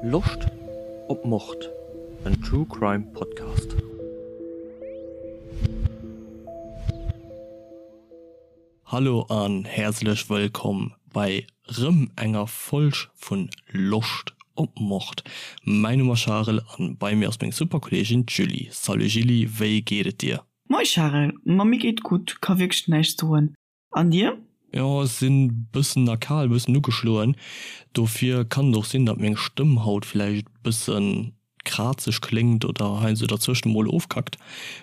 Loscht op Mord? En True Crime Podcast. Hallo an häerzlech wëllkomm bei rëm enger Folg vun Loscht op Mord. Mäin Numm ass Charel an bei mir ass meng super Kolleegin d'Julie. Salut Julie, wéi geet et dir? Moi Charel, ma mir geet gutt, ka wierklech näischt soen. An dir? Jo, ech sinn bëssen erkal, bëssen ugeschloen. Dofir kann et och sinn, datt meng Stëmm haut villäicht bëssen krazeg kléngt oder heiansdo derzwëschen emol ofkackt.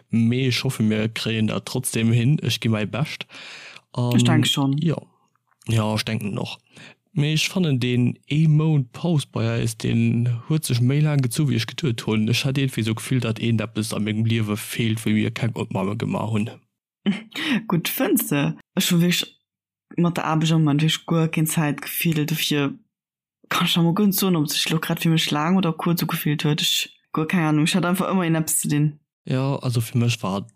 Mee ech hoffe mir kréien dat trotzdem hin. Ech gi mäi Bescht. Ech denke schonn. Jo, jo ech denken och. Mee ech fannen deen ee Mount Paus bei eis, deen huet sech méi laang gezu wéi ech geduet hunn. Ech hat iergendwéi esou d'Gefill, datt iergendeppes a mengem Liewe feelt, wéi mir keng Opname gemaach hunn. Gutt, fënns de? Ech hu wierklech mat der Aarbecht am Moment wierklech guer keng Zäit gefillt. Dofir kann ech der mol guer net soen, ob et sech elo grad fir mech laang oder kuerz ugefillt huet. Ech, guer keng Ahnung. Ech hat einfach ëmmer iergendeppes ze dinn. Jo, also fir mech war,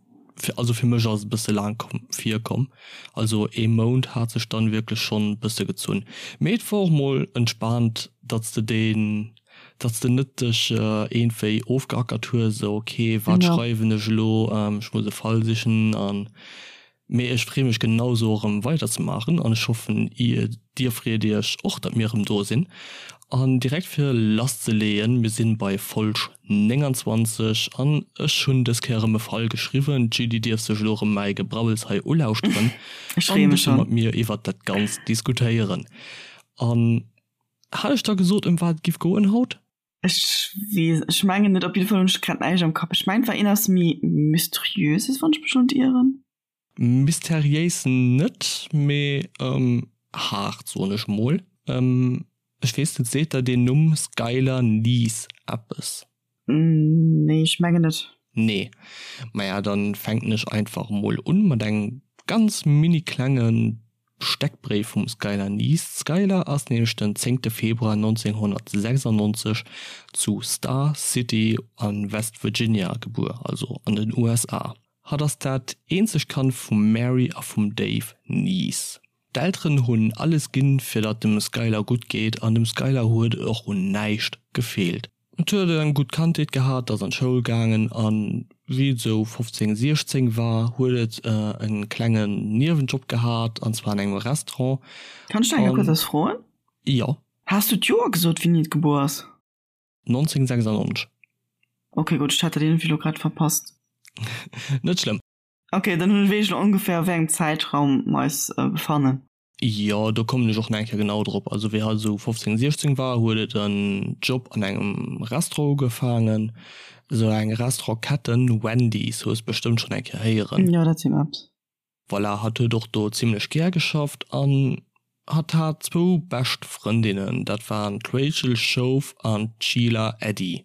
also fir mech ass et e bësse laang komm, virkomm. Also ee Mount hat sech dann wierklech schonn e bësse gezunn. Mee et war och mol entspaant, datt s de deen Datt s de net dech iergendwéi ofgeackert hues, esou ok, wat schreiwen ech elo, ech muss e Fall sichen an. Mee ech freeë mech genausou erëm weiderzemaachen an ech hoffen dir freet iech och, datt mir erëm do sinn. An direkt fir lasszeleeën, mir sinn bei Folg 29 an ech hunn dës Kéier erëm e Fall geschriwwen. D'Julie dierf sech elo erëm mäi Gebrabbels hei ulauschteren an e bësse mat mir iwwert dat Ganzt diskutéieren. An Hat ech da gesot ëm wat et giff goen haut? Ech weess, ech mengen net. Op jidde Fall hunn ech grad näischt am Kapp. Ech mengen et war een aus méi Mysteriöses, wann ech mech net ieren. Mysteriéis net, mee haart soen ech mol. Ech weess net, seet der deen Numm Skylar Neese eppes? Nee, ech mengen net. Nee. Maja, dann fänken ech einfach mol un mat engem ganz mini klengen Steckbréif vum Skylar Neese. D'Skylar ass nämlech den zéngte Februar 1996 zu Star City a West Virginia gebuer, also an den USA. Hatt ass dat eenzegt Kand vum Mary a vum Dave Neese. D'Elteren hunn alles ginn, fir datt dem Skylar gutt geet an dem Skylar huet et och un näischt gefeelt. Et huet eng gutt Kandheet gehat, ass an d'Schoul gaangen a wéi et esou 15, 16 war, huet et e klengen Niewenjob gehat an zwar an engem Restaurant. Kann ech nach eng kuerz eppes froen? Jo. Has du d'Joer gesot, wéini et gebuer ass? 1996. Ok, gutt, ech hat dat iergendwéi elo grad verpasst. Net schlëmm. Ok, dann hunn ech wéi ech elo ongeféier a wéi engem Zäitraum mer eis befannen. Jo, do kommen ech och nach eng Kéier genau drop. Also wéi hatt esou 15, 16 war, huet et en Job an engem Restaurant ugefaangen, esou eng Restaurantketten, Wendy's, hues bestëmmt schonn eng Kéier héieren. Jo, dat seet mer eppes. Voilà, hatt huet och do zimlech gär geschafft an hatt hat zwou bescht Frëndinnen, dat waren d'Rachel Shoaf an d'Sheila Eddy.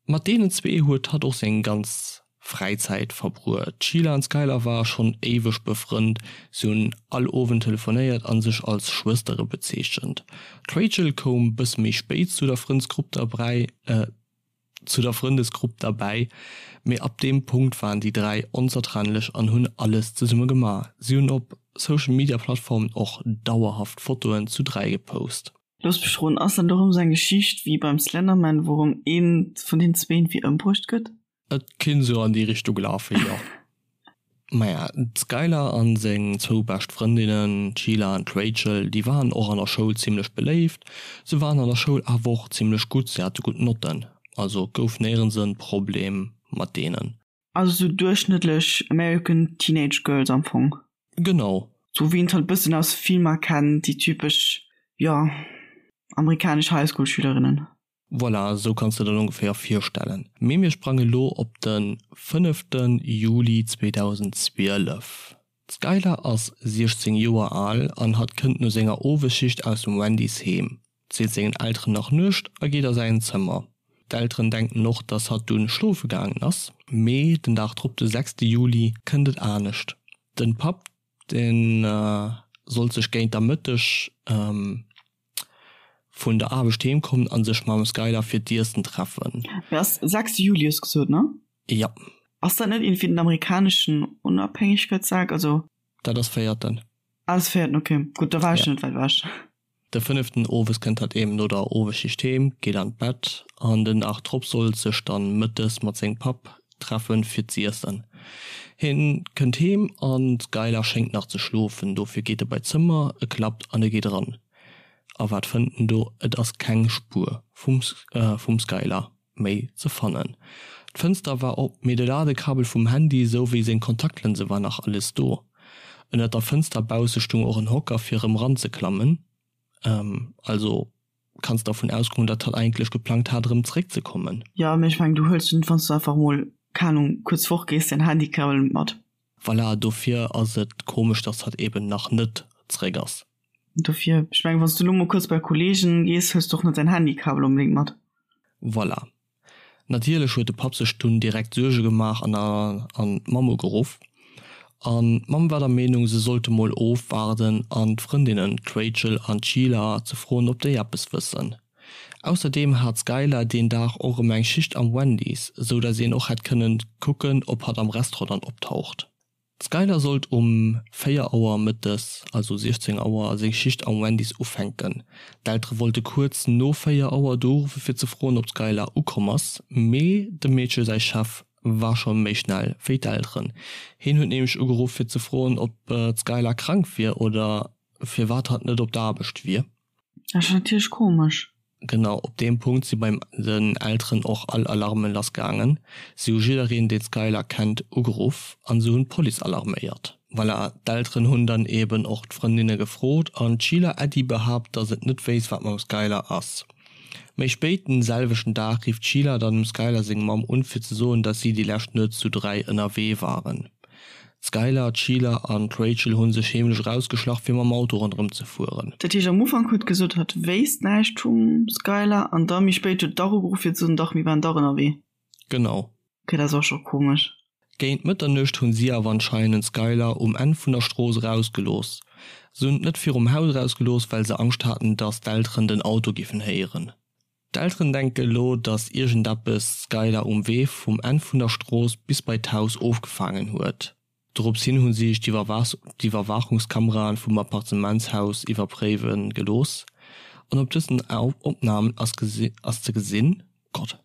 Mat deenen zwee huet hatt och seng ganz Fräizäit verbruet. D'Sheila an d'Skylar ware schonn éiweg befrënnt, si hunn all Owend telefonéiert a sech als Schwëstere bezeechent. D'Rachel koum bësse méi spéit zu der Frëndsgrupp derbäi, zu der Frëndesgrupp derbäi, mee ab deem Punkt waren déi 3 onzertrennlech an hunn alles zesumme gemaach. Si hunn op Social Media Plattformen och dauerhaft Fotoen zu 3 gepost. Looss mech roden, ass dat och erëm sou eng Geschicht wéi beim Slenderman, wou erëm een vun den zween wéi ëmbruecht gëtt? Et kinnt sou an déi Richtung lafen, jo. Maja, d'Skylar an seng zwou bescht Frëndinnen, d'Sheila an d'Rachel, déi waren och an der Schoul zimlech beléift. Se waren an der Schoul awer och zimlech gutt, se hate gutt Notten, also gouf néierens en Problem mat deenen. Also sou duerchschnëttlech American Teenage Girls am Fong. Genau. Sou wéi een et halt bëssen aus Filmer kennt, déi typesch, jo, amerikanesch Highschool-Schülerinnen. Voilà, esou kanns de der dat ongeféier virstellen. Mee mir sprange lo op de fënnefte Juli 2012. D'Skylar ass 16 Joer al an hatt kënnt no senger Owesschicht aus dem Wendy's heem, seet sengen Elteren nach Nuecht a geet a säin Zëmmer. D'Elteren denken och, dass hatt dunn schlofe gaangen ass. Mee den Dag drop, de sechste Juli, kënnt et anescht. Den Papp, dee sollt sech géint der Mëtteg vun der Aarbecht heem kommen a sech mam Skylar fir d'Iessen treffen. Mee ass sechste Juli hues gesot, ne? Jo. Ass dat net iergendwéi den amerikaneschen Onabhängegkeetsdag? Also. Dat ass véierten. Ah, ass véierten, ok. Gutt, da war ech net wäit ewech. De fënneften owes kënnt hatt eben no der Owesschicht heem, geet an d'Bett an den Dag drop sollt sech dann mëttes mat sengem Papp treffen fir z'iessen. Hien kënnt heem an d'Skylar schéngt nach ze schlofen, dofir geet e bei d'Zëmmer, e klappt an e geet eran. A wat fënnt en do? Et ass keng Spuer vum vum Skylar méi ze fannen. D'Fënster war op, mee de Ladekabel vum Handy sou wéi seng Kontaktlënse war nach alles do. Ënnert der Fënster bausse stung och en Hocker fir erëm ranzeklammen, also kanns dervun ausgoen dat hatt eigentlech geplangt hat erëm zeréck ze kommen. Jo, mee ech mengen du huels jo net wanns du einfach mol, keng Ahnung, kuerz fort gees, däin Handykabel mat. Voilà, dofir ass et komesch dass hatt eben nach net zeréck ass. Dofir, ech mengen wanns du lo mol kuerz bei Kollegen gees, huels du och net däin Handykabel onbedéngt mat. Voilà. Natierlech huet de Papp sech dunn direkt Suerge gemaach an an d'Mamm ugeruff. An d'Mamm war der Meenung, se sollte mol ofwaarden an d'Frëndinnen, d'Rachel an d'Sheila, ze froen, ob déi eppes wëssen. Ausserdeem hat d'Skylar deen Dag och erëm eng Schicht am Wendy's, sou dass een och hätt kënnen kucken, ob hatt am Restaurant dann optaucht. D'Skylar sollt um 4 Auer mëttes, also 16 Auer, seng Schicht am Wendy's ufänken. D'Eltere wollte kuerz no 4 Auer do uruffe fir ze froen, ob d'Skylar ukomm ass, mee dem Meedche säi Chef war scho méi schnell wéi d'Elteren. Hien huet nämlech ugeruff fir ze froen, ob d'Skylar krank wier oder firwat hatt net op der Aarbecht wier. Dat ass natierlech komesch. Genau op deem Punkt si bei den Elteren och all Alarmen lass gaangen. Si hu jiddereen deen d'Skylar kennt ugeruff an se hunn d'Police alarméiert. Voilà, d'Elteren hunn dann eben och d'Frëndinne gefrot an d'Sheila Eddy behaapt, dass et net wéisst wat mam Skylar ass. Méi spéit den selwechten Dag rifft d'Sheila dann dem Skylar seng Mamm un fir ze soen, dass si déi lescht Nuet zu 3 ënnerwee waren. D'Skylar, d'Sheila an d'Rachel hu sech heemlech erausgeschlach fir mam Auto ronderëm ze fueren. Dat heescht am Ufank huet gesot hatt wéisst näischt vum Skylar an da méi spéit huet dach ugeruff fir ze soen dach mir waren dach ënnerwee. Genau. Ok dat ass och scho komesch. Géint Mëtternuecht hunn si awer anscheinend d'Skylar um Enn vun der Strooss erausgelooss. Se hunn et net virum Haus erausgelooss well se Angscht haten dass d'Elteren den Auto giffen héieren. D'Elteren denke elo, datt iergendeppes d'Skylar um Wee vum Enn vun der Strooss bis bei d'Haus ofgefaangen huet. Dorops hin hu si sech d'Iwwerwaachungskameraen vum Appartementshaus iwwerpréiwe gelooss an op dësen Opnamen ass ze gesinn, Gott,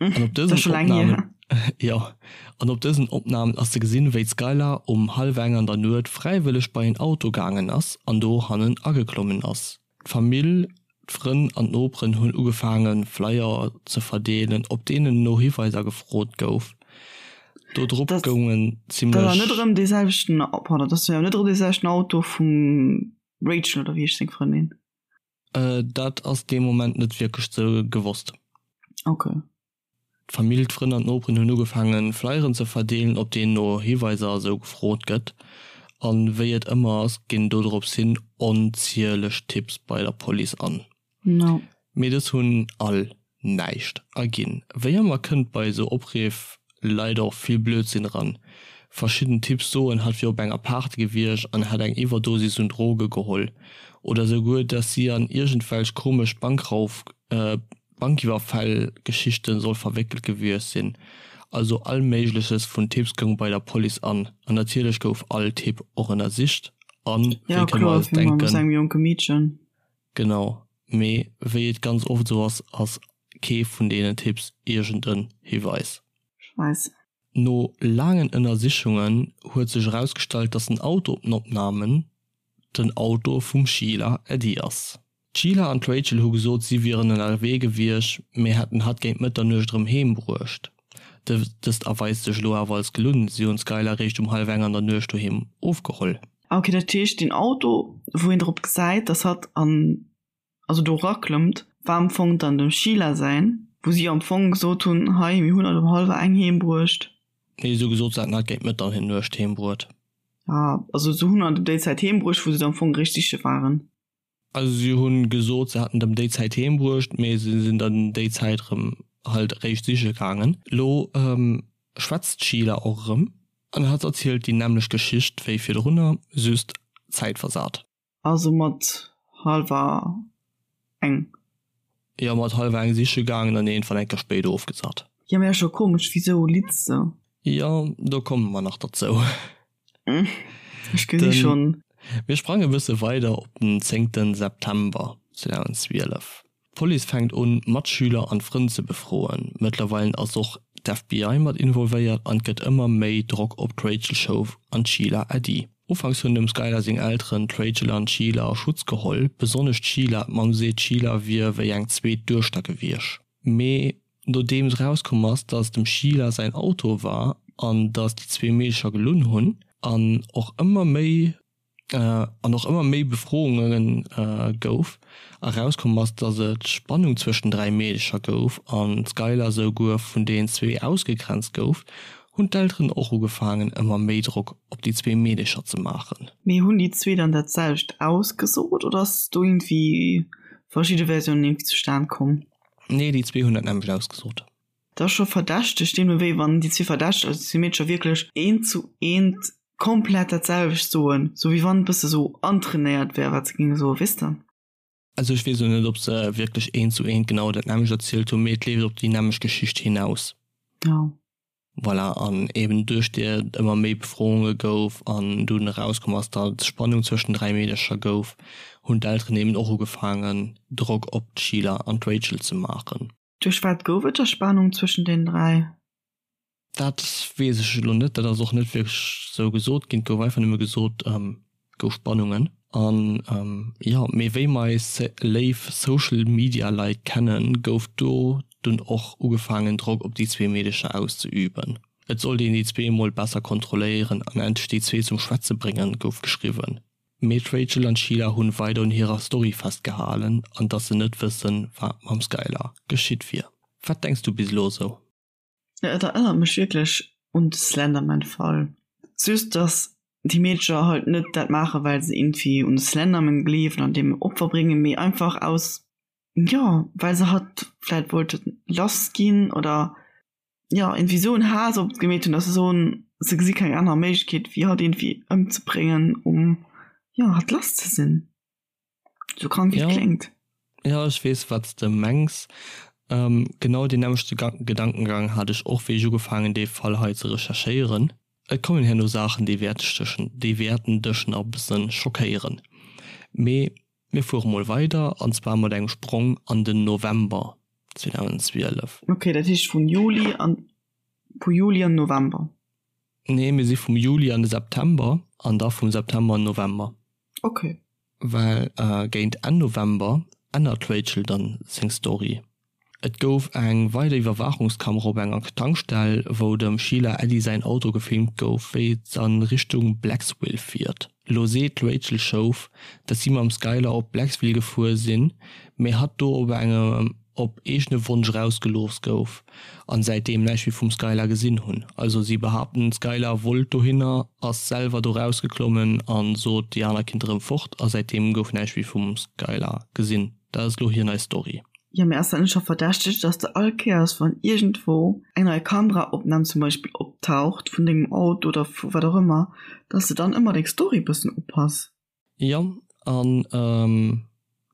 an op dësen Opnamen, jo, an op dësen Opnamen ass ze gesinn, wéi d'Skylar um hallwer eng an der Nuet fräiwëlleg bei en Auto gaangen ass an do hannen ageklommen ass. D'Famill, d'Frënn an d'Noperen hunn ugefaange Flyer ze verdeelen, op deenen no Hiweiser gefrot gouf. Do drop goungen zimmlech. Dat ass net erëm dee selwechten, pardon, dat ass jo net erëm dee selwechten Auto vum Rachel, oder wéi heescht seng Frëndin? Dat ass dee Moment net wierklech ze gewosst. Okay. D'Famill, d'Frënn an d'Noperen hunn ugefaangen, Flyeren ze verdeelen, op deenen no Hiweiser a sou gefrot gëtt. An wéi et ëmmer ass, ginn dodrops hin onzieleg Tipps bei der Police an. No. Mee dës hunn all näischt erginn. Wéi ëmmer kënnt bei esou Opriff leider och vill Blödsinn eran. Verschidden Tipps soen, hatt wier op enger Party gewiescht an hätt eng Iwwerdosis un Droge geholl. Oder souguer, dass si an iergendwelch komesch Bankrauf. Bankiwwerfäll-Geschichten soll verwéckelt gewiescht sinn. Also all méigleches vun Tipps goung bei der Police an. An natierlech gouf all Tipp och ënnersicht an, wéi kënne mer eis denken, genau, mee wéi et ganz oft esou ass, ass kee vun deenen Tipps iergend en Hiweis. No laangen Ënnersichungen huet sech erausgestallt, dass den Auto op den Opnamen den Auto vum Sheila Eddy ass. D'Sheila an d'Rachel hu gesot, si wieren ënnerwee gewiescht, mee hätten hatt géint Mëtternuecht erëm heem bruecht. Dëst erweist sech elo awer als gelunn, si hunn d'Skylar eréischt um hallwer eng an der Nuecht doheem ofgeholl. Ok, dat heescht deen Auto wou een drop gesäit dass hatt an also do eraklëmmt war am Fong dann dem Sheila säin, wou si am Fong gesot hunn, hei mir hunn hatt um hallwer eng heem bruecht. Nee, si hu gesot, se hätten hatt géint Mëtternuecht heem bruet. Ah, also se hunn hatt ëm déi Zäit heem bruecht wou se am Fong eréischt siche waren. Also si hunn gesot, se hätten et ëm déi Zäit heem bruecht, mee se sinn dann déi Zäit erëm halt eréischt siche gaangen. Lo schwätzt d'Sheila och erëm an hatt erzielt déi nämmlecht Geschicht wéi virdrunner, just zäitversat. Also mat hallwer eng? Jo, mat hallwer eng siche gaangen an iergendwann eng Kéier spéit ofgesat. Jo, mee ass scho komesch, wisou litz se? Jo, do komme mer nach derzou. Ech gesi schonn. Mir sprange bësse weider op den zéngten September 2012. D'Police fänkt un, Matschüler an Frënn ze befroen. Mëttlerweilen ass och d'FBI mat involvéiert an et gëtt ëmmer méi Drock op d'Rachel Shoaf an d'Sheila Eddy. Ufanks hunn dem Skylar seng Elteren d'Rachel an d'Sheila a Schutz geholl, besonnesch d'Sheila. D'Mamm seet, d'Sheila wier wéi eng zweet Duechter gewiescht. Mee nodeems erauskomm ass, dass et dem Sheila säin Auto war an dass déi zwee Meedecher gelunn hunn an och ëmmer méi an och ëmmer méi Befrounge gouf, erauskomm ass, dass et Spannung zwëscht den 3 Meedecher gouf an d'Skylar souguer vun den zwee ausgegrenzt gouf, hunn d'Elteren och ugefaangen ëmmer méi Drock op déi zwee Meedecher ze maachen. Mee hunn déi zwee dann dat selwecht ausgesot oder ass do iergendwéi verschidde Versiounen iergendwéi zustan komm? Nee, déi zwee hunn dat nämmlecht ausgesot. Dat ass scho verdächteg, deemno wéi wann déi zwee Verdächteg, also déi zwee Meedercher wierklech eent zu eent komplett dat selwecht soen, sou wéi wann et bësse sou antrainéiert wär, wat se géinge soen, weess de? Also ech weess elo net, ob se wierklech eent zu eent genau dat nämmlecht erzielt hunn, mee et leeft op déi nämmlecht Geschicht hinaus. Jo. Voilà, an eben duerch déi et ëmmer méi Befrounge gouf an dunn erauskomm ass, datt et Spannung zwëschen den 3 Meedercher gouf, hunn d'Elteren eben och ugefaangen, Drock op d'Sheila an d'Rachel ze maachen. Duerch wat gouf et da Spannung zwëschen den 3? Dat weess ech elo net, dat ass och net wierklech sou gesot ginn. Et gouf einfach nëmme gesot, et gouf Spannungen. An jo, mee wéi mer eis léif Social Media Leit kennen, gouf do dunn och ugefaangen Drock op déi zwee Meedecher auszeüben. Et sollt een déi zwee emol besser kontrolléieren an endlech déi zwee zum Schwätze bréngen, gouf geschriwwen. Mee d'Rachel an d'Sheila hunn weider un hirer Story festgehalen an dass se net wëssen, wat mam Skylar geschitt wier. Wat denks du bis elo esou? Et erënnert mech wierklech un de Slenderman-Fall. Just dass déi Meedercher halt net dat maachen, well se iergendwéi un de Slenderman gleewen an deem Opfer bréngen, mee einfach aus, jo, well se hatt vläit wollte lass ginn oder, jo, iergendwéi esou en Haass op et gemeet hunn, dass se soen, se gesi keng aner Méiglechkeet wéi hatt iergendwéi ëmzebréngen, um, jo, hatt lass ze sinn. Sou krank wéi et kléngt. Jo, ech weess wat s de mengs. Genau deen nämmlechte Gedankengang hat ech och wéi ech ugefaangen dee Fall hei ze recherchéieren. Et kommen herno Saachen déi déi wäerten dech nach e bëssen schockéieren. Mee mir fuere mol weider an zwar mat engem Sprong an den November 2012. Ok, dat heescht vun Juli an vu Juli an November? Nee, mir si vum Juli an de September an da vum September an November. Ok. Well géint Enn November ännert d'Rachel dann seng Story. Et gouf eng weider Iwwerwaachungskamera op enger Tankstell, wou dem Sheila Eddy säin Auto gefilmt gouf, wéi et a Richtung Blacksville fiert. Elo seet d'Rachel Shoaf, dass si mam Skylar op Blacksville gefuer sinn, mee hatt do op engem op eegene Wonsch erausgelooss gouf an säitdeem näischt méi vum Skylar gesinn hunn. Also si behaapten d'Skylar wollt dohinner, ass selwer do rausgeklommen an sot déi aner kinnte rëm fort a säitdeem gouf näischt méi vum Skylar gesinn. Dat ass elo hir nei Story. Jo mee ass dat net scho verdächteg dass de all Kéiers wann iergendwou eng nei Kameraopnahm zum Beispill optaucht vun dengem Auto oder vu wat och ëmmer, dass de dann ëmmer deng Story bëssen upass? Jo an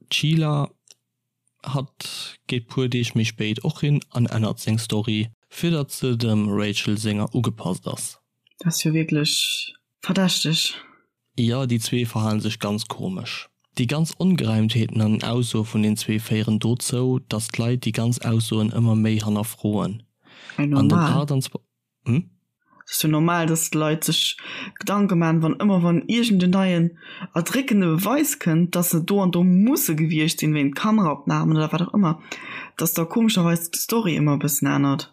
d'Sheila Hatt geet puer Deeg méi spéit och hin an ännert seng Story, fir datt se dem Rachel senger ugepasst ass. Dat ass jo wierklech verdächteg. Jo, déi zwee verhalen sech ganz komesch. Déi ganz Ongereimtheeten an den Aussoe vun den zwee féieren dozou, datt d'Leit déi ganz Aussoen ëmmer méi hannerfroen. An den 28. Hm? Et ass jo normal, dass d'Leit sech Gedanke maachen, wann ëmmer wann iergend en neien erdréckende Beweis kënnt, dass se do an do musse gewiescht sinn, wéint Kameraopnamen oder wat och ëmmer, dass da komescherweis d'Story ëmmer e bëssen ännert.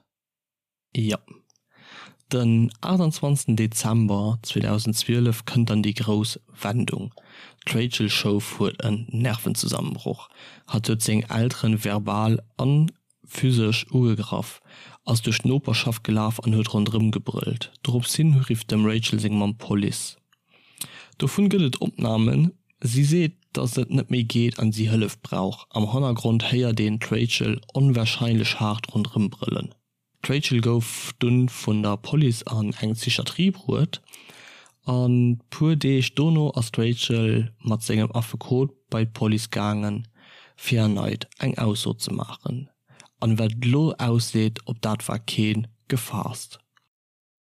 Jo. Den 28 Dezember 2012 kënnt dann déi grouss Wendung, D'Rachel Shoaf huet en Nervenzusammenbroch. Hatt huet seng Elteren verbal an Physesch ugegraff, ass duerch d'Noperschaft gelaf an huet ronderëm gebrëllt. Dorops hin rifft dem Rachel seng Mamm d'Police. Dovun gëtt et Opnamen. Si seet, dass et net méi geet an si Hëllef brauch. Am Hannergrond héiert een d'Rachel onwarscheinlech haart ronderëm brëllen. D'Rachel gouf dunn vun der Police an eng Psychiatrie bruet an puer Deeg dono ass d'Rachel mat sengem Affekot bei d'Police gaangen fir erneit eng Ausso ze maachen. An wat et elo ausseet, op dat war kee gefaasst.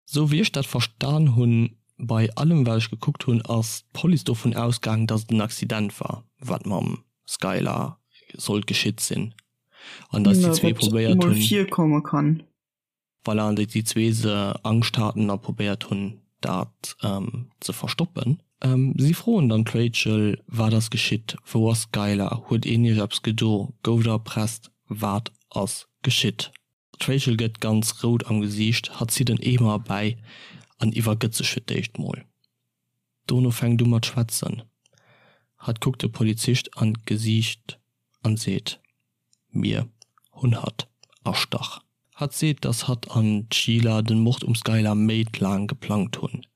Sou wéi ech dat verstan hunn. Bei allem wat ech gekuckt hunn ass d'Police dovun ausgaangen, datt et en Accident war, wat mam Skylar sollt geschitt sinn an datt déi zwee probéiert hunn. Virkomme kann. Voilà, an datt déi zwee se Angscht haten a probéiert hunn dat ze verstoppen. Si froen dann d'Rachel, Wat ass geschitt? Wou ass d'Skylar? Huet een iech eppes gedo? Gouft der erpresst? Wat ass geschitt? D'Rachel gëtt ganz rout am Gesiicht, hatt zitt en Eemer erbäi an iwwergëtt sech fir d'éischt mol. Dono fänkt u mat schwätzen. Hatt kuckt de Polizist an d'Gesiicht an seet, Mir hunn hatt erstach. Hatt seet, dass hatt an d'Sheila den Mord um Skylar Méint laang geplangt hunn.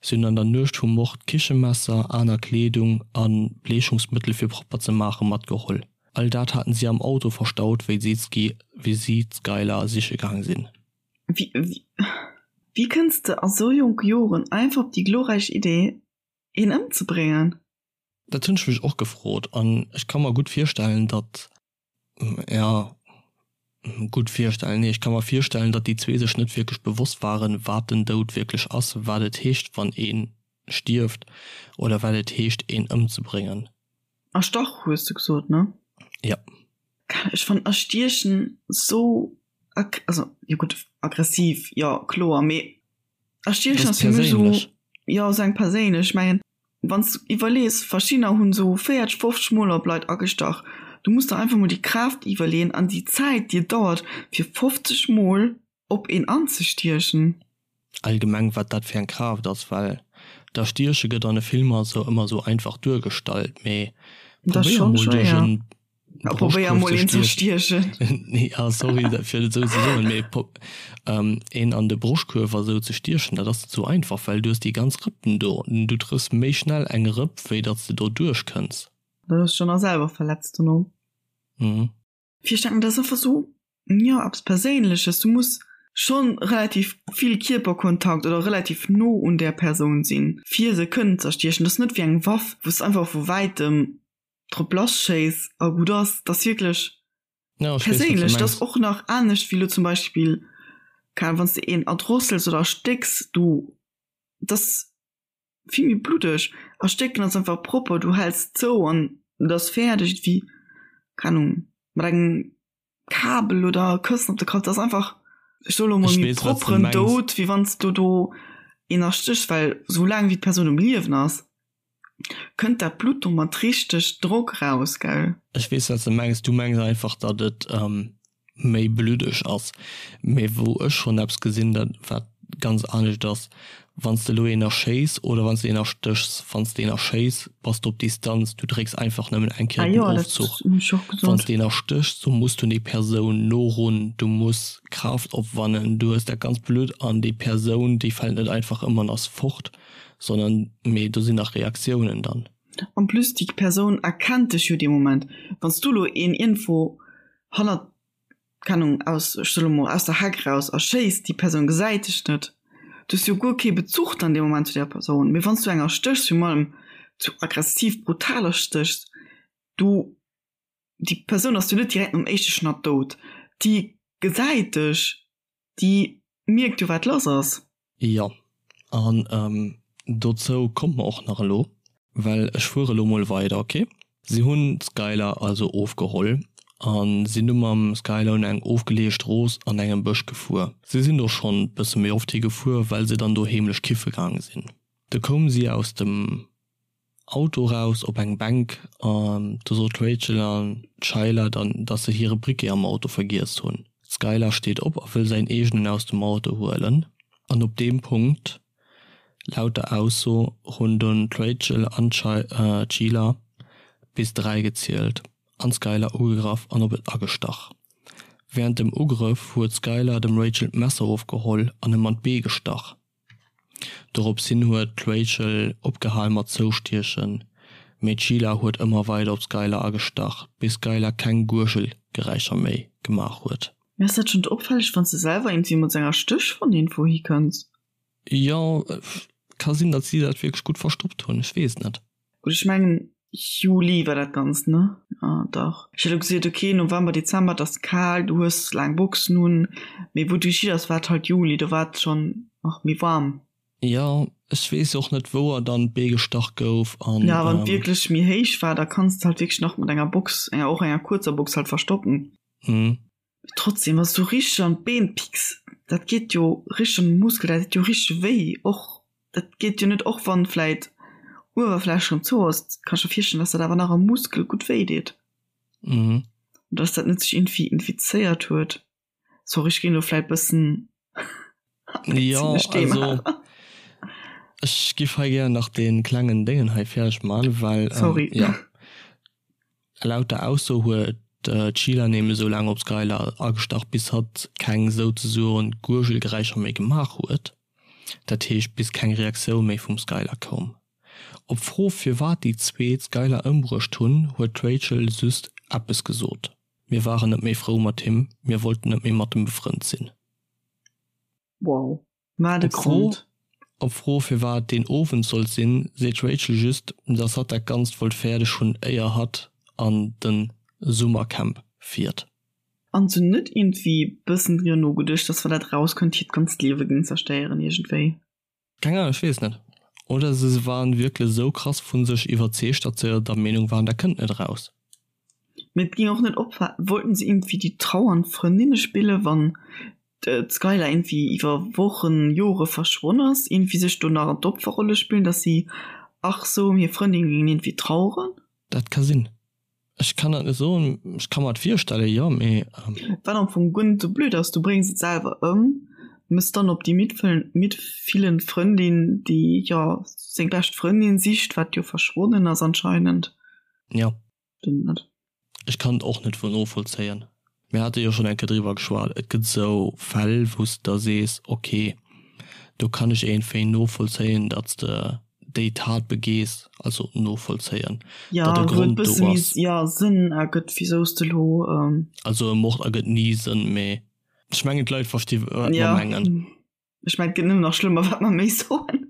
Si hunn an der Nuecht vum Mord Kichemesser, aner Kleedung a Bleechungsmëttel fir propper ze maache matgeholl. All dat haten si am Auto verstaut, wéi si d'Skylar siche gaang sinn. Wéi kënns de a sou jonke Joren einfach op déi glorräich Idee, een ëmzebréngen? Dat hunn ech mech och gefrot an ech ka mer gutt virstellen, datt, jo, gutt virstellen, nee, ech ka mer virstellen, datt déi zwee sech net wierklech bewosst waren, wat den Doud wierklech ass, wat et heescht, wann ee stierft oder wat et heescht, een ëmzebréngen. Erstach hues de gesot, ne? Ja. Ech fannen erstiechen sou, also jo gutt, aggressiv, jo kloer, mee erstiechen ass fir mech sou, jo sou eng perséinlech. Ech mengen wann s de iwwerlees, verschiddener hunn sou 40, 50 mol op Leit agestach, du muss der einfach mol déi Kraaft iwwerleeën an déi Zäit déi et dauert fir 50 mol op een anzestiechen. Allgemeng wat dat fir eng Kraaft ass, well d'Erstieche gëtt an de Filmer sou ëmmer sou einfach duergestallt, mee probéier mol duerch en Broschtkuerf ze stiechen. Ja sorry fir et esou ze soen, mee een an de Broschtkuerf a sou ze stiechen, dat ass net sou einfach, well du hues déi ganz Rëppen do, du trëffs méi schnell eng Rëpp wéi datt s de do duerchkënns. Da hues de dech nach selwer verletzt dono. Mhm. Fir ech denken, dat ass einfach sou, jo, eppes Perséinleches. Du muss schonn relativ vill Kierperkontakt oder relativ no un där Persoun sinn, fir se kënnen ze erstiechen. Dat ass net wéi eng Waff, wou s de einfach vu wäitem drop lasschéiss a gutt ass. Dat ass wierklech Ja, ech weess, wat du perséinlech. Dat ass mengs. och nach anescht wéi elo zum Beispill, keng Ahnung, wann s de een erdrossels oder erstécks, du, dat ass vill méi bluddeg. Erstécken ass einfach propper, du häls zou an et ass fäerdeg, wéi, keng Ahnung, mat engem Kabel oder Këssen op de Kapp. Dat ass einfach, ech soe lo mol, Ech méi weess, wat s de propperen mengs. Doud, wéi wann s du do een erstéchs, well sou laang wéi d'Persoun um Liewen ass, kënnt dat Blutt do mat richteg Drock raus, gell? Ech weess, wat s de mengs. Du mengs einfach, datt et méi bluddeg ass. Mee wou ech schonn eppes gesinn, dat wat ganz anescht ass, wann s de elo een erschéiss oder wann s de een erstéchs, wann s de een erschéiss, bass de op Distanz, du drécks einfach nëmmen eng Kéier Ah den jo, dat Ofzuch. hunn ech och Wann s gesot. de een erstéchs, du muss du déi Persoun norun, du muss Kraaft opwannen, du hues dat ganz Blutt an déi Persoun, déi fält net einfach ëm an ass fort, sondern mee do sinn nach Reaktiounen dann. En plus déi Persoun erkennt dech jo dee Moment. Wann s du elo een iergendwou hannert, keng Ahnung, aus, ech soe lo mol, aus der Heck raus erschéiss, déi Persoun gesäit dech net, du hues jo guer kee Bezuch dann dee Moment zu där Persoun. Mee wann s du eng erstéchs, virun allem sou aggressiv, brutal erstéchs, du, déi Persoun ass jo net direkt nom éischte Schnatt dout, déi gesäit dech, déi mierkt jo wat lass ass. Jo, an dozou komme mer och nach elo, well ech fuere elo mol weider, ok? Si hunn d'Skylar also ofgeholl a sinn du mam Skylar un eng ofgeleeë Strooss an engem Bësch gefuer. Si sinn do schonn bësse méi oft hi gefuer, well se dann do heemlech kiffe gaange sinn. Du koume si aus dem Auto raus op eng Bänk an do sot d'Rachel an d'Shyla dann, dass se hire Briquet am Auto vergiess hunn. D'Skylar steet op a wëll säin eegenen aus dem Auto huelen an op deem Punkt, laut der Ausso, hunn dunn d'Rachel an d'Sheila bis 3 gezielt an d'Skylar ugegraff an op et agestach. Wärend dem Ugrëff huet d'Skylar dem Rachel d'Messer ofgeholl an em an d'Bee gestach. Dorops hin huet d'Rachel opgehal mat zoustiechen, mee d'Sheila huet ëmmer weider op d'Skylar agestach, bis d'Skylar keng Guergelgeräischer méi gemaach huet. Mee ass dat schonn opfälleg wanns de selwer iergendwéi mat senger Stéch vun iergendwou hikënns? Jo, ka sinn datt si dat wierklech gutt verstoppt hunn, ech weess et net. Gutt, ech mengen Juli war dat Ganzt, ne? Jo, dach. Ech hätt elo gesot, ok, November, Dezember, et ass kal, du hues laang Boxen un. Mee wou du geschitt ass, war et halt Juli, do war et schonn nach méi waarm. Jo, ech weess och net wou er dann d'Bee gestach gouf an. Ja, wann et wierklech méi héich war, da kanns de halt wierklech nach mat enger Box, enger och enger kuerzer Box halt verstoppen. Mhm. Trotzdem, wann s du richteg an d'Been picks, dat geet jo richteg an de Muskel, dat deet jo richteg wéi och. Dat geet jo net, och wann vläit Uewerfläch rëm zou ass, kann ech mer virstellen, dass dat awer nach am Muskel gutt wéi deet. Mhm. Und dass dat net sech iergendwéi infizéiert huet. Sorry, ech ginn elo vläit bëssen Ja, also ech giff hei gär nach dee klengen Déngen hei fäerdeg man, well Sorry. ja laut der Ausso huet d'Sheila nämlech esou laang op d'Skylar agestach bis hatt keng souzesoen Gurgelgeräischer méi gemaach huet, dat heescht bis keng Reaktioun méi vum Skylar koum. Op d'Fro firwat déi zwee d'Skylar ëmbruecht hunn, huet d'Rachel just eppes gesot. Mir waren net méi frou mat him, mir wollten net méi mat em befrënnt sinn. Wow, wat e Grond! Op d'Fro firwat deen Owend sollt sinn, seet d'Rachel just, dass hatt dat Ganzt wollt fäerdeg hunn éier hatt an de Summercamp fiert. An se hunn net iergendwéi bëssen driwwer nogeduecht, dass wa dat rauskënnt, hiert ganzt Liewe géing zerstéieren iergendwéi? Keng Ahnung, ech weess net. Oder se waren wierklech esou krass vu sech iwwerzeegt, datt se der Meenung waren, dat kënnt net eraus. Mee et ging och net op. Wollten se iergendwéi déi trauernd Frëndinne spillen, wann d'Skylar iergendwéi iwwer Wochen, Jore verschwonn ass, iergendwéi sech do nach an d'Opferrolle spillen, datt si ach sou ëm hir Frëndin géingen iergendwéi traueren? Dat ka sinn. Ech kann dat net soen, ech ka mer et virstellen, jo, mee. Wat am Fong guer net sou blöd ass, du bréngs et selwer ëm, mëss dann op déi mitfillend Frëndin, déi jo seng bescht Frëndin sicht, wat jo verschwonnen ass anscheinend. Jo. Stëmmt net. Ech kann et och net voll novollzéien. Mir hate jo schonn eng Kéier driwwer geschwat, et gëtt esou Fäll, wou s de da sees, ok, do kann ech iergendwéi novollzéien, datt s de déi Tat begees, also novollzéien, Ja, datt e wou et Grond do bësse méi ass. ja, Sënn ergëtt, wisou s de elo. Also e Mord ergëtt ni Sënn, mee ech mengen d'Leit versti wat mer Ja, mengen. ech mengen et gëtt nëmmen nach schlëmmer, wat mer méi soen.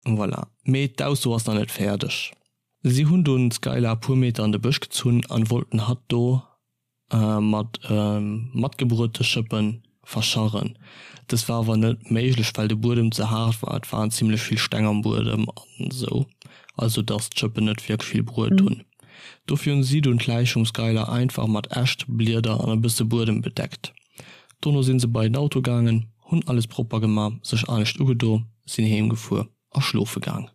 Voilà. Mee d'Ausso ass nach net fäerdeg. Si hunn dunn d'Skylar e puer Meter an de Bësch gezunn an wollten hatt do mat matgebruete Schëppe verscharren. Dëst war awer net méiglech, well de Buedem ze haart war, et waren zimlech vill Steng am Buedem an esou, also dass d'Schëppen net wierklech vill bruet hunn. Dofir hunn si dunn d'Läich vum Skylar einfach mat Äscht, Blieder an e bësse Buedem bedeckt. Dono sinn se bei den Auto gaangen, hunn alles propper gema, sech anescht ugedo, sinn heem gefuer a schlofe gaang.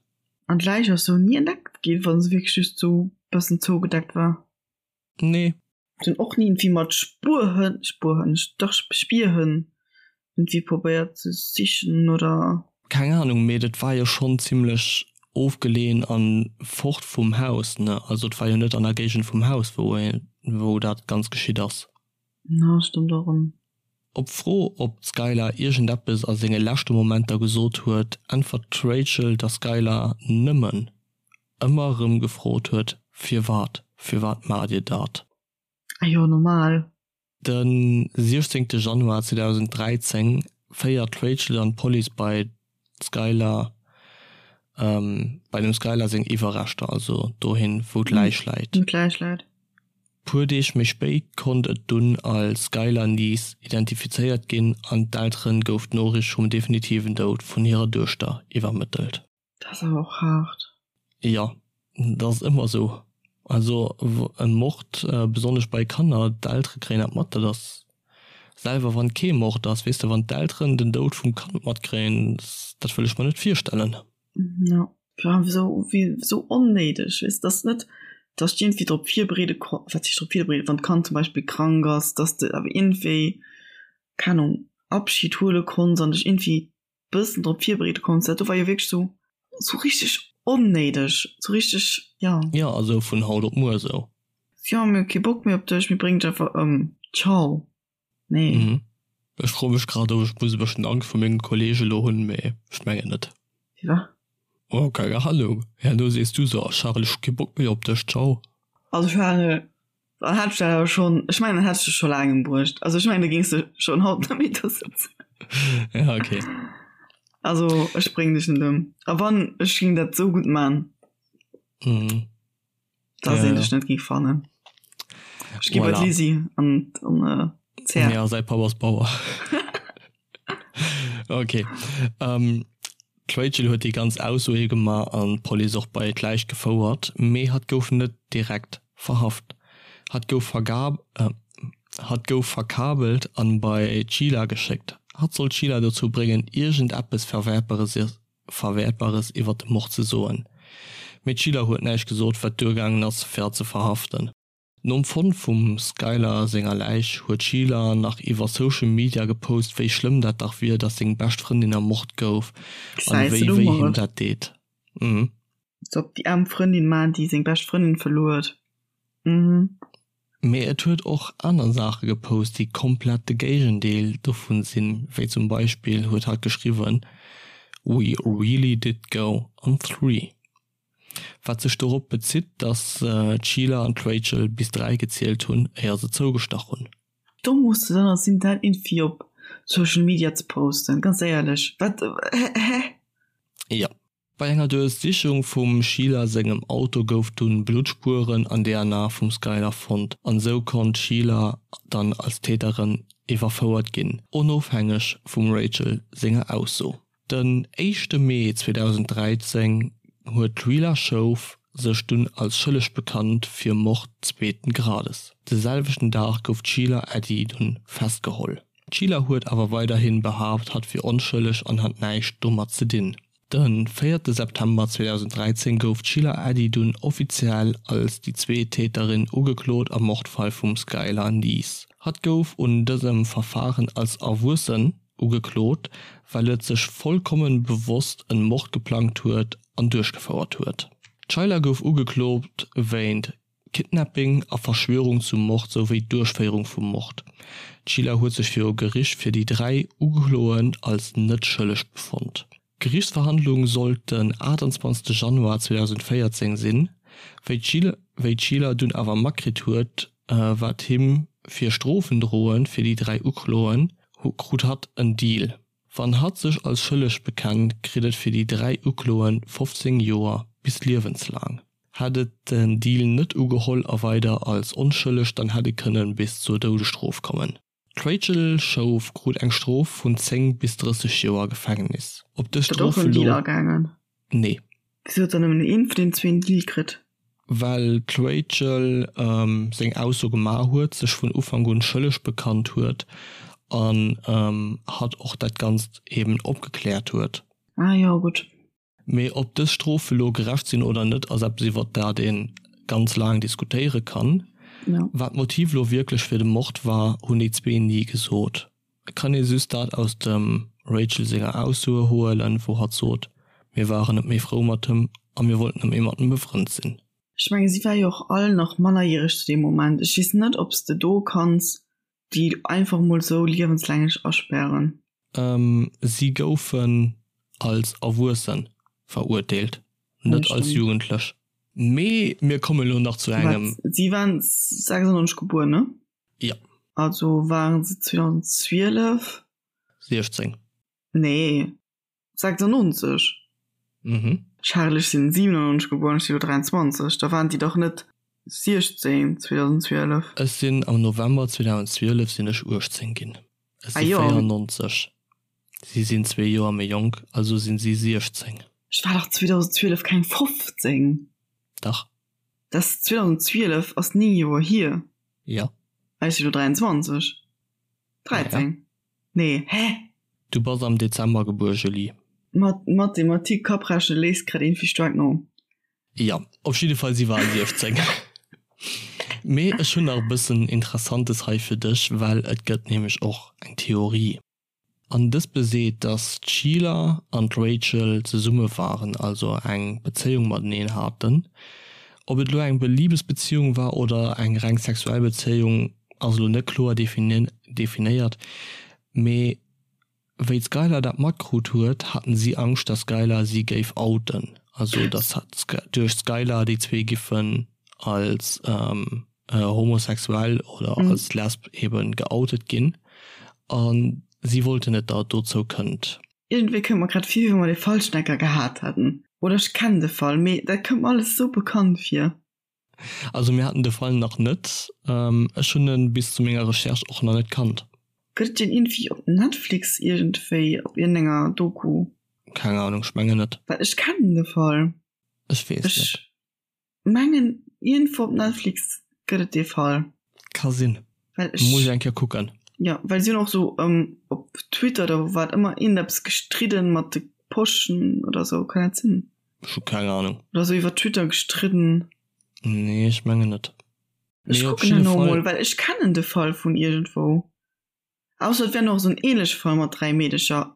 An d'Läich ass sou ni entdeckt ginn, wann se wierklech just sou bëssen zougedeckt war? Nee. Se hunn och ni iergendwéi mat Spuerhënn, Spuerhënn, dach Spierhënn iergendwéi probéiert ze sichen oder? Keng Ahnung, mee dat war jo schonn zimlech ofgeleeën an fort vum Haus, ne? Also et war jo net an der Géigend vum Haus, wou wou dat Ganzt geschitt ass. Na, stëmmt och erëm. Op d'Fro, ob d'Skylar iergendeppes a senge leschte Momenter gesot huet, äntwert d'Rachel, dass d'Skylar nëmmen ëmmer erëm gefrot huet, Firwat? Firwat maacht Dir dat? Ah jo, normal. De 16 Januar 2013 féiert d'Rachel dann d'Police bei d'Skylar, bei dem Skylar seng Iwwerreschter, also dohin, wou d'Läich läit. Wou d'Läich läit. Puer Deeg méi spéit konnt et dunn als Skylar Neese identifizéiert ginn an d'Eltere gouf d'Noriicht vum definitiven Doud vun hirer Duechter iwwermëttelt. Dat ass awer och haart. Jo, dat ass ëmmer esou. Also e Mord, besonnesch bei Kanner, d'Eltere kréien dat mat. Dat ass selwer wann kee Mord ass, weess de, wann d'Elteren den Doud vum Kand matkréien, dat wëll ech mer net virstellen. Jo, vor allem esou wéi esou onnéideg, weess de, dass net, dass de iergendwéi drop virbereede ko, wat heescht drop virbereeden, wann d'Kand zum Beispill krank ass, dass de awer iergendwéi, keng Ahnung, Abschid huele konns an dech iergendwéi bëssen drop virbereede konns. Dat do war jo wierklech esou, esou richteg onnéideg, esou richteg, jo. Jo, esou vun haut op muer esou. Jo, mir hu kee Bock méi op dech, mir bréngen dech einfach ëm, ciao. Nee. Mhm. Ech froe mech grad, ob ech muss e bëssen Angscht vu menge Kollege elo hunn, mee ech mengen net. Firwat? Oh, keng Ahnung. Herno sees du sou, oh Charel, ech hu kee Bock méi op dech, ciao. Also Charel, dann hätt ech dat awer schonn, ech mengen, dann hätt ech dech scho laang embruecht. Also ech mengen, da géings de schonn haut net méi do sëtzen. Ja, okay. Also ech bréngen dech net ëm. A wann, ech géing dat sou gutt man. Mhm. Dass een dech net géing fannen. Ech gi bei d'Lisi an an äh, Ja, säi Papp ass Bauer. Okay. Ähm,. D'Rachel huet déi ganz Aussoe gemaach an d'Police och bei d'Läich gefouert, mee hatt gouf net direkt verhaft. Hatt gouf hatt gouf verkabelt an bei d'Sheila geschéckt. Hatt sollt d'Sheila dozou bréngen iergend eppes Verwäertbares iwwert de Mord ze soen. Mee d'Sheila huet näischt gesot, wat duergaangen ass fir hatt ze verhaften. Nom Fonnt vum Skylar senger Läich huet d'Sheila nach iwwer Social Media gepost, wéi schlëmm dat dach wier, dass seng bescht Frëndin ermort gouf an Gesäis wéi de do wéi him mol. dat deet. Mhm. Als ob déi aarm Frëndin man, déi seng bescht Frëndin verluer huet. Mhm. Mee et huet och aner Saache gepost, déi komplett de Géigendeel dovun sinn, wéi zum Beispill huet hatt geschriwwen, We really did go on three. Wat sech dorop bezitt, datt d'Sheila an d'Rachel bis 3 gezielt hunn, éier se zougestach hunn. Domm muss de dann sinn dat iergendwéi op Social Media ze posten, ganz éierlech, wat hä? Jo. Bei enger Duerchsichung vum Sheila sengem Auto gouf dunn Bluttspueren an DNA vum Skylar fonnt an esou konnt d'Sheila dann als Täterin iwwerfouert ginn, onofhängeg vum Rachel senger Ausso. Den éischte Mee 2013 huet d'Sheila Schoof sech dunn als schëlleg bekannt fir Mord zweeten Grades. De selwechten Dag gouf d'Sheila Eddy dunn festgeholl. D'Sheila huet awer weiderhin behaapt hatt wier onschëlleg an hat näischt domat ze dinn. De véierte September 2013 gouf d'Sheila Eddy dunn offiziell als déi zweet Täterin ugeklot am Mordfall vum Skylar Neese. Hatt gouf un dësem Verfaren als Erwuessen Ugeklot, well et sech vollkommen bewosst en Mord geplangt huet an duerchgefouert huet. D'Sheila gouf ugeklot wéint Kidnapping a Verschwörung zum Mord souwéi Duerchféierung vum Mord. D'Sheila huet sech viru Gericht fir déi 3 Ukloen als net schëlleg befonnt. D'Geriichtsverhandlung sollt den 28 Januar 2014 sinn, wéi d'Sheila dunn awer matkritt huet, wat him fir Strofen droen fir déi 3 Ukloen, krut hatt en Deal. Wann hatt sech als schëlleg bekennt, kritt et fir déi 3 Ukloen 15 Joer bis liewenslaang. Hätt et den Deal net ugeholl a weider als onschëlleg, dann hätt e kënne bis zur Doudesstrof kommen. D'Rachel Schoof krut eng Strof vun 10 bis 30 Joer Gefängnis. Op dës Huet och Strof en Deal elo. agaangen? Nee. Wisou huet dann nëmmen een vun den zwee en Deal kritt? Well d'Rachel seng Ausso gemaach huet, sech vun Ufank un schëlleg bekannt huet an hatt och dat Ganzt eben opgekläert huet. Ah jo, gutt. Mee ob dës Strofe lo gerecht sinn oder net, ass eppes iwwert dat ee ganz laang diskutéiere kann. Wat d'Motiv lo wierklech fir de Mord war, hunn déi zwee ni gesot. Et kann ee just dat aus dem Rachel senger Aussoe huelen, wou hatt sot, Mir waren net méi frou mat him a mir wollten net méi mat em befrënnt sinn. Ech menge si war jo och all nach mannerjäreg zu deem Moment. Ech weess net, ob s de do kanns déi einfach mol sou liewenslänglech aspären. Si goufen als Erwuesse verurteelt, net als Jugendlech. Mee mir komme lo nach zu engem. Si waren 96 gebuer, ne? Jo. Also waren se 2012. 16. Nee. 96? Mhm. Charel, ech sinn 97 gebuer an ech si lo 23, da waren déi dach net 16 2012. Ech sinn am November 2012 sinn ech 18 ginn. Ech Ah si jo. 94. Si sinn zwee Joer méi jonk, also sinn si 16. Ech war dach 2012 keng 15. Dach. Dat 2012 ass 9 Joer hier. Jo. Ech si lo 23. 13. Ja. Nee, hä? Du bass am Dezember gebuer, Julie. Mat Mathematik Kapprechnen léisst grad iergendwéi staark no. Jo, op jidde Fall, si war 16. Mee ech hunn nach e bëssen Interessantes hei fir dech, well et gëtt nämlech och eng Theorie. An dës beseet, dass d'Sheila an d'Rachel zesumme waren, also eng Bezéiung mateneen haten. Ob et elo eng Libesbeziung war oder eng reng sexuell Bezéiung, ass elo net kloer definéiert, mee wéi d'Skylar dat matkrut huet, haten si Angscht, dass d'Skylar si géif outen, also dass duerch d'Skylar déi zwee giffen als homosexuell oder als lesb eben geoutet ginn a si wollten net, datt et dozou kënnt. Iergendwéi kënnt mer grad vir, wéi wa mer dee Fallschnecker gehat hätten. Oder ech kennen de Fall, mee dat kënnt mer alles esou bekannt vir. Also mir haten de Fall nach net. Ech hunn en bis zu menger Recherche och nach net kannt. Gëtt et deen iergendwéi op Netflix iergendwéi op iergendenger Doku? Keng Ahnung, ech mengen net. Well ech kennen de Fall. Ech weess net. Ech mengen iergendwou op Netflix gëtt et dee Fall. Ka sinn. Well ech. Muss ech eng Kéier kucken. Jo, well si hunn och sou op Twitter oder wou wat ëmmer iergendeppes gestridden mat de Poschen oder sou, kann dat sinn? Ech hu keng Ahnung. Oder sou iwwer Twitter gestridden. Nee, ech mengen net. Ech kucken herno mol, well ech kennen de Fall vun iergendwou. Ausser et wär nach esou en ähnleche Fall mat 3 Meedecher.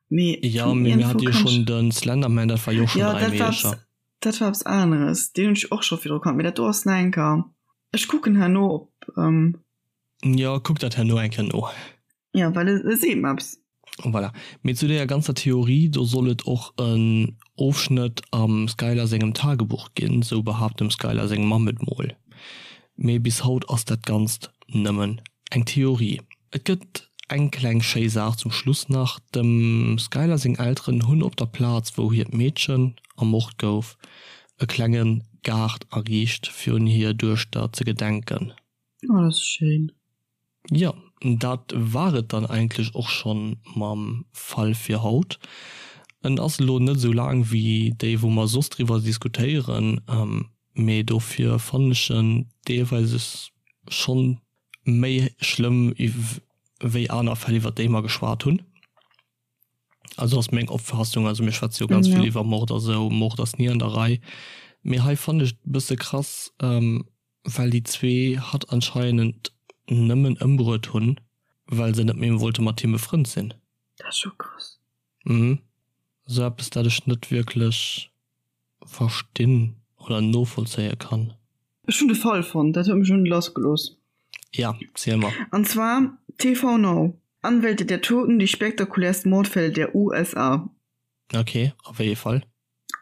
Mee ja, mee mir hat jo schon den Slenderman, dat war jo schon 3 Meedecher. Dat war eppes aneres, deen hunn ech och scho virdru kannt, mee dat do ass nach eng Kéier. Ech kucken herno op. Jo, kuck dat herno eng Kéier no. Jo, well e seet mer eppes. Voilà. Mee zu deeër ganzer Theorie, do soll et och en Ofschnëtt am Skylar sengem Tagebuch ginn, sou behaapt dem Skylar seng Mamm et mol. Mee bis haut ass dat Ganzt nëmmen eng Theorie. Et gëtt eng kleng schéi Saach zum Schluss nach, Dem Skylar seng Elteren hunn op der Plaz, wou hiert Meedchen ermort gouf, e klenge Gaart ariicht, fir un hir Duechter ze gedenken. Oh, dat ass schéin. Jo, dat war et dann eigentlech och schonn mam Fall fir haut. En ass elo net esou laang wéi déi wou mer soss driwwer diskutéieren, mee dofir fannen ech en deelweis schonn méi schlëmm wéi aner Fäll iwwer déi mer geschwat hunn. Also ass meng Opfaassung, also mir schwätze jo ganz vill iwwer Mord a sou, Mord ass ni an der Rei, mee hei fannen ech et e bësse krass, Well déi zwee hatt anscheinend nëmmen ëmbruet hunn, well se net méi wollte mat him befrënnt sinn. Dat ass scho krass. Mhm. Sou eppes, dat ech net wierklech verstinn oder novollzéie kann. Ech hunn de Fall fonnt, dat huet mech elo net lassgelooss. Ja, ziel mer. An zwar TV Now, Anwälte der Toten, die spektakulärsten Mordfälle der USA. Ok, a wéi ee Fall?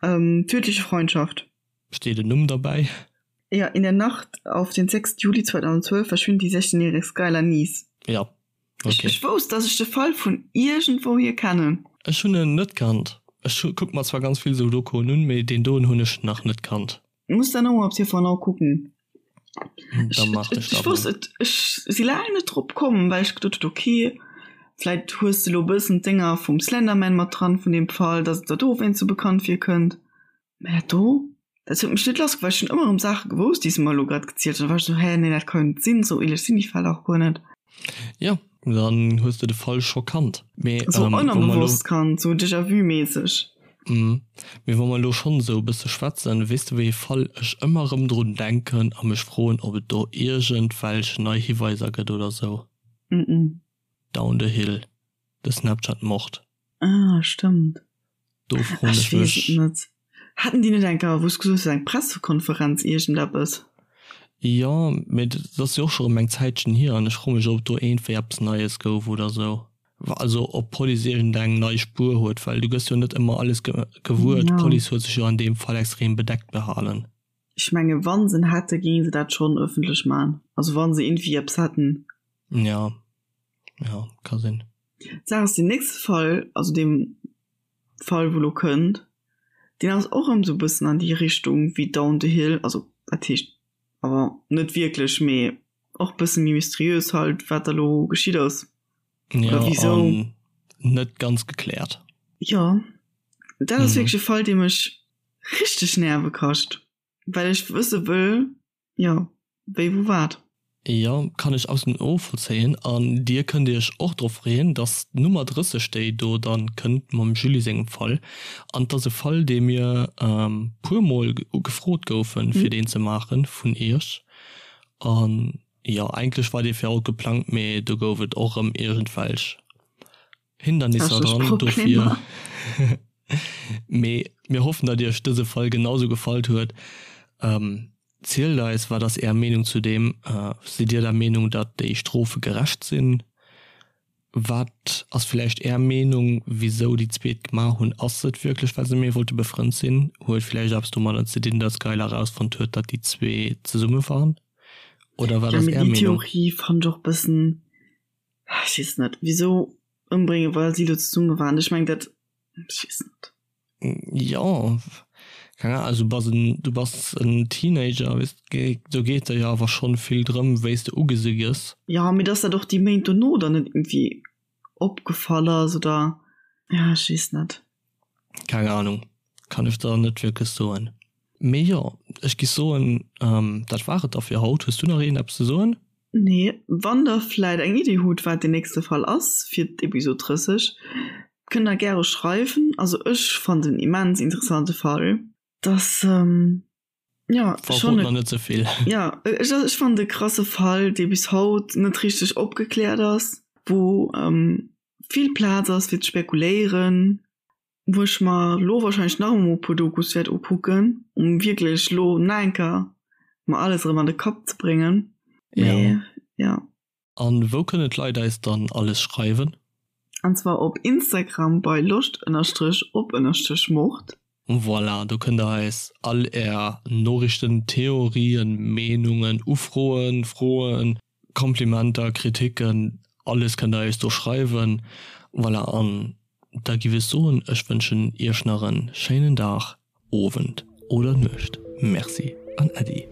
Tödliche Freundschaft. Steet en Numm derbäi? Ja, in der Nacht auf den 6. Juli 2012 verschwinnt die 16-jährige Skylar Neese. Ja, okay. Ech wousst, dass ech de Fall vun iergendwouhier kennen. Ech hunn en net kannt. Ech kucke mer zwar ganz vill esou Dokoen un, mee deen doen hunn ech nach net kannt. Muss dann och op TV Now kucken. Da mach ech dat mol. Ech ech si laang net drop komm, well ech geduet hunn, okay, vläit hues de lo e bëssen d'Dénger vum Slenderman mat dran, vun deem Fall, dass et der dowéinst sou bekannt virkënnt. Mä dat do, dat huet mech net lass, well ech hunn ëmmer erëm Saache gewousst, déi se mer elo grad gezielt hunn. Da war ech sou, hä, nee, dat ka jo net sinn, sou ähnlech sinn déi Fäll dach guer net. Jo, dann hues de de Fall scho kannt. Mee Sou ähm, wou mer elo ënnerbewosst kannt, sou Déjà-vu-mässeg. Mhm. Mee wa mer elo schonn esou e bësse schwätzen, weess de wéi ee Fall ech ëmmer erëm drun denken a mech froen, ob et do iergendwelch nei Hiweiser gëtt oder sou? Mhm. Down the Hill, de Snapchat-Mord. Ah, stëmmt. Do froen ech mech. Ech weess et net. Haten déi net eng Kéier, wou s gesot hues, eng Pressekonferenz, iergendeppes? Jo, mee dat ass jo och scho rëm eng Zäitchen hier an ech froe mech, ob do iergendwéi eppes Neies gouf oder sou. Also ob d'Police iergendeng nei Spuer huet, well du gëss jo net ëmmer alles gewuer. D'Police huet sech jo an deem Fall extrem bedeckt behalen. Ech menge wa se en hätte, géinge se dat schonn ëffentlech maachen. Also wa se iergendwéi eppes hätten. Jo, jo, ka sinn. D'Saach ass, deen nächste Fall, also deem Fall wou lo kënnt, deen ass och erëm sou bëssen an déi Richtung wéi Down the Hill, also wat heescht awer net wierklech, mee och bësse méi mysteriös halt wat da lo geschitt ass oder ja, wisou. Net ganz gekläert. Jo, dat ass wierklech e Fall dee mech richteg Nerve kascht, well ech wësse wëll, Jo, wéi, wou, wat? Jo, kann ech absolut novollzéien. An dir kënnt iech och drop freeën, dass d'Nummer 30, déi do dann kënnt mam Julie sengem Fall, an 't ass e Fall, dee mir puer mol gefrot goufen, fir deen ze maachen vun iech. An jo, eigentlech war dee fir haut geplangt, mee do gouf et och erëm iergendwelch Hindernisser dran, dofir. Mee mir hoffen, datt iech dëse Fall genau sou gefallt huet. Zielt eis, wat ass är Meenung zu deem? Sidd dir der Meenung, datt déi Strofe gerecht sinn? Wat ass villäicht är Meenung, wisou déi zweet gemaach hunn? Ass et wierklech, well se méi wollte befrënnt sinn? Huet villäicht eppes domadder ze dinn, datt Skylar erausfonnt huet, datt déi zwee zesumme waren? Oder wat ass är Meenung? Déi Theorie fannt ech och bëssen Ech weess net, wisou ëmbréngen, well si do zesumme waren. Ech meng dat, ech weess net. Jo, keng Ahnung, also du bass en, du bass en Teenager, weess de, do geet der jo awer schonn vill drëm, wéi s de ugesi gëss. Jo, mee dass dat och déi Méint dono dann net iergendwéi opgefall ass oder, ja, ech weess net. Keng Ahnung, kann ech der net wierklech soen. Mee jo, ech giff soen, dat war et da fir haut. Hues du nach iergendeppes ze soen? Nee, wann der vläit eng Iddi hutt wat den nächste Fall ass fir d'Episod 30, kënnt der gäre schreiwen. Also ech fannt en immens interessante Fall. Dass jo schonn e, net zevill. Jo, ech ech fannt e krasse Fall dee bis haut net richteg opgekläert ass, wou vill Plaz ass fir ze spekuléieren, wou ech mer lo wahrscheinlech nach emol e puer Dokus wäert ukucken, um wierklech lo nach eng Kéier mer alles erëm an de Kapp ze bréngen. Mee ja. An wou kënnen d'Leit eis dann alles schreiwen? An zwar op Instagram bei loscht ënnerstrech op ënnerstrech mord. Voilà, do kënnt der eis all är Noriichten, Theorien, Meenungen, Ufroen, Froen, Komplimenter, Kritiken, alles kënnt der eis do schreiwen. Voilà, an da giff ech soen, ech wënschen iech nach en schéinen Dag, Owend oder Nuecht. Merci an Äddi.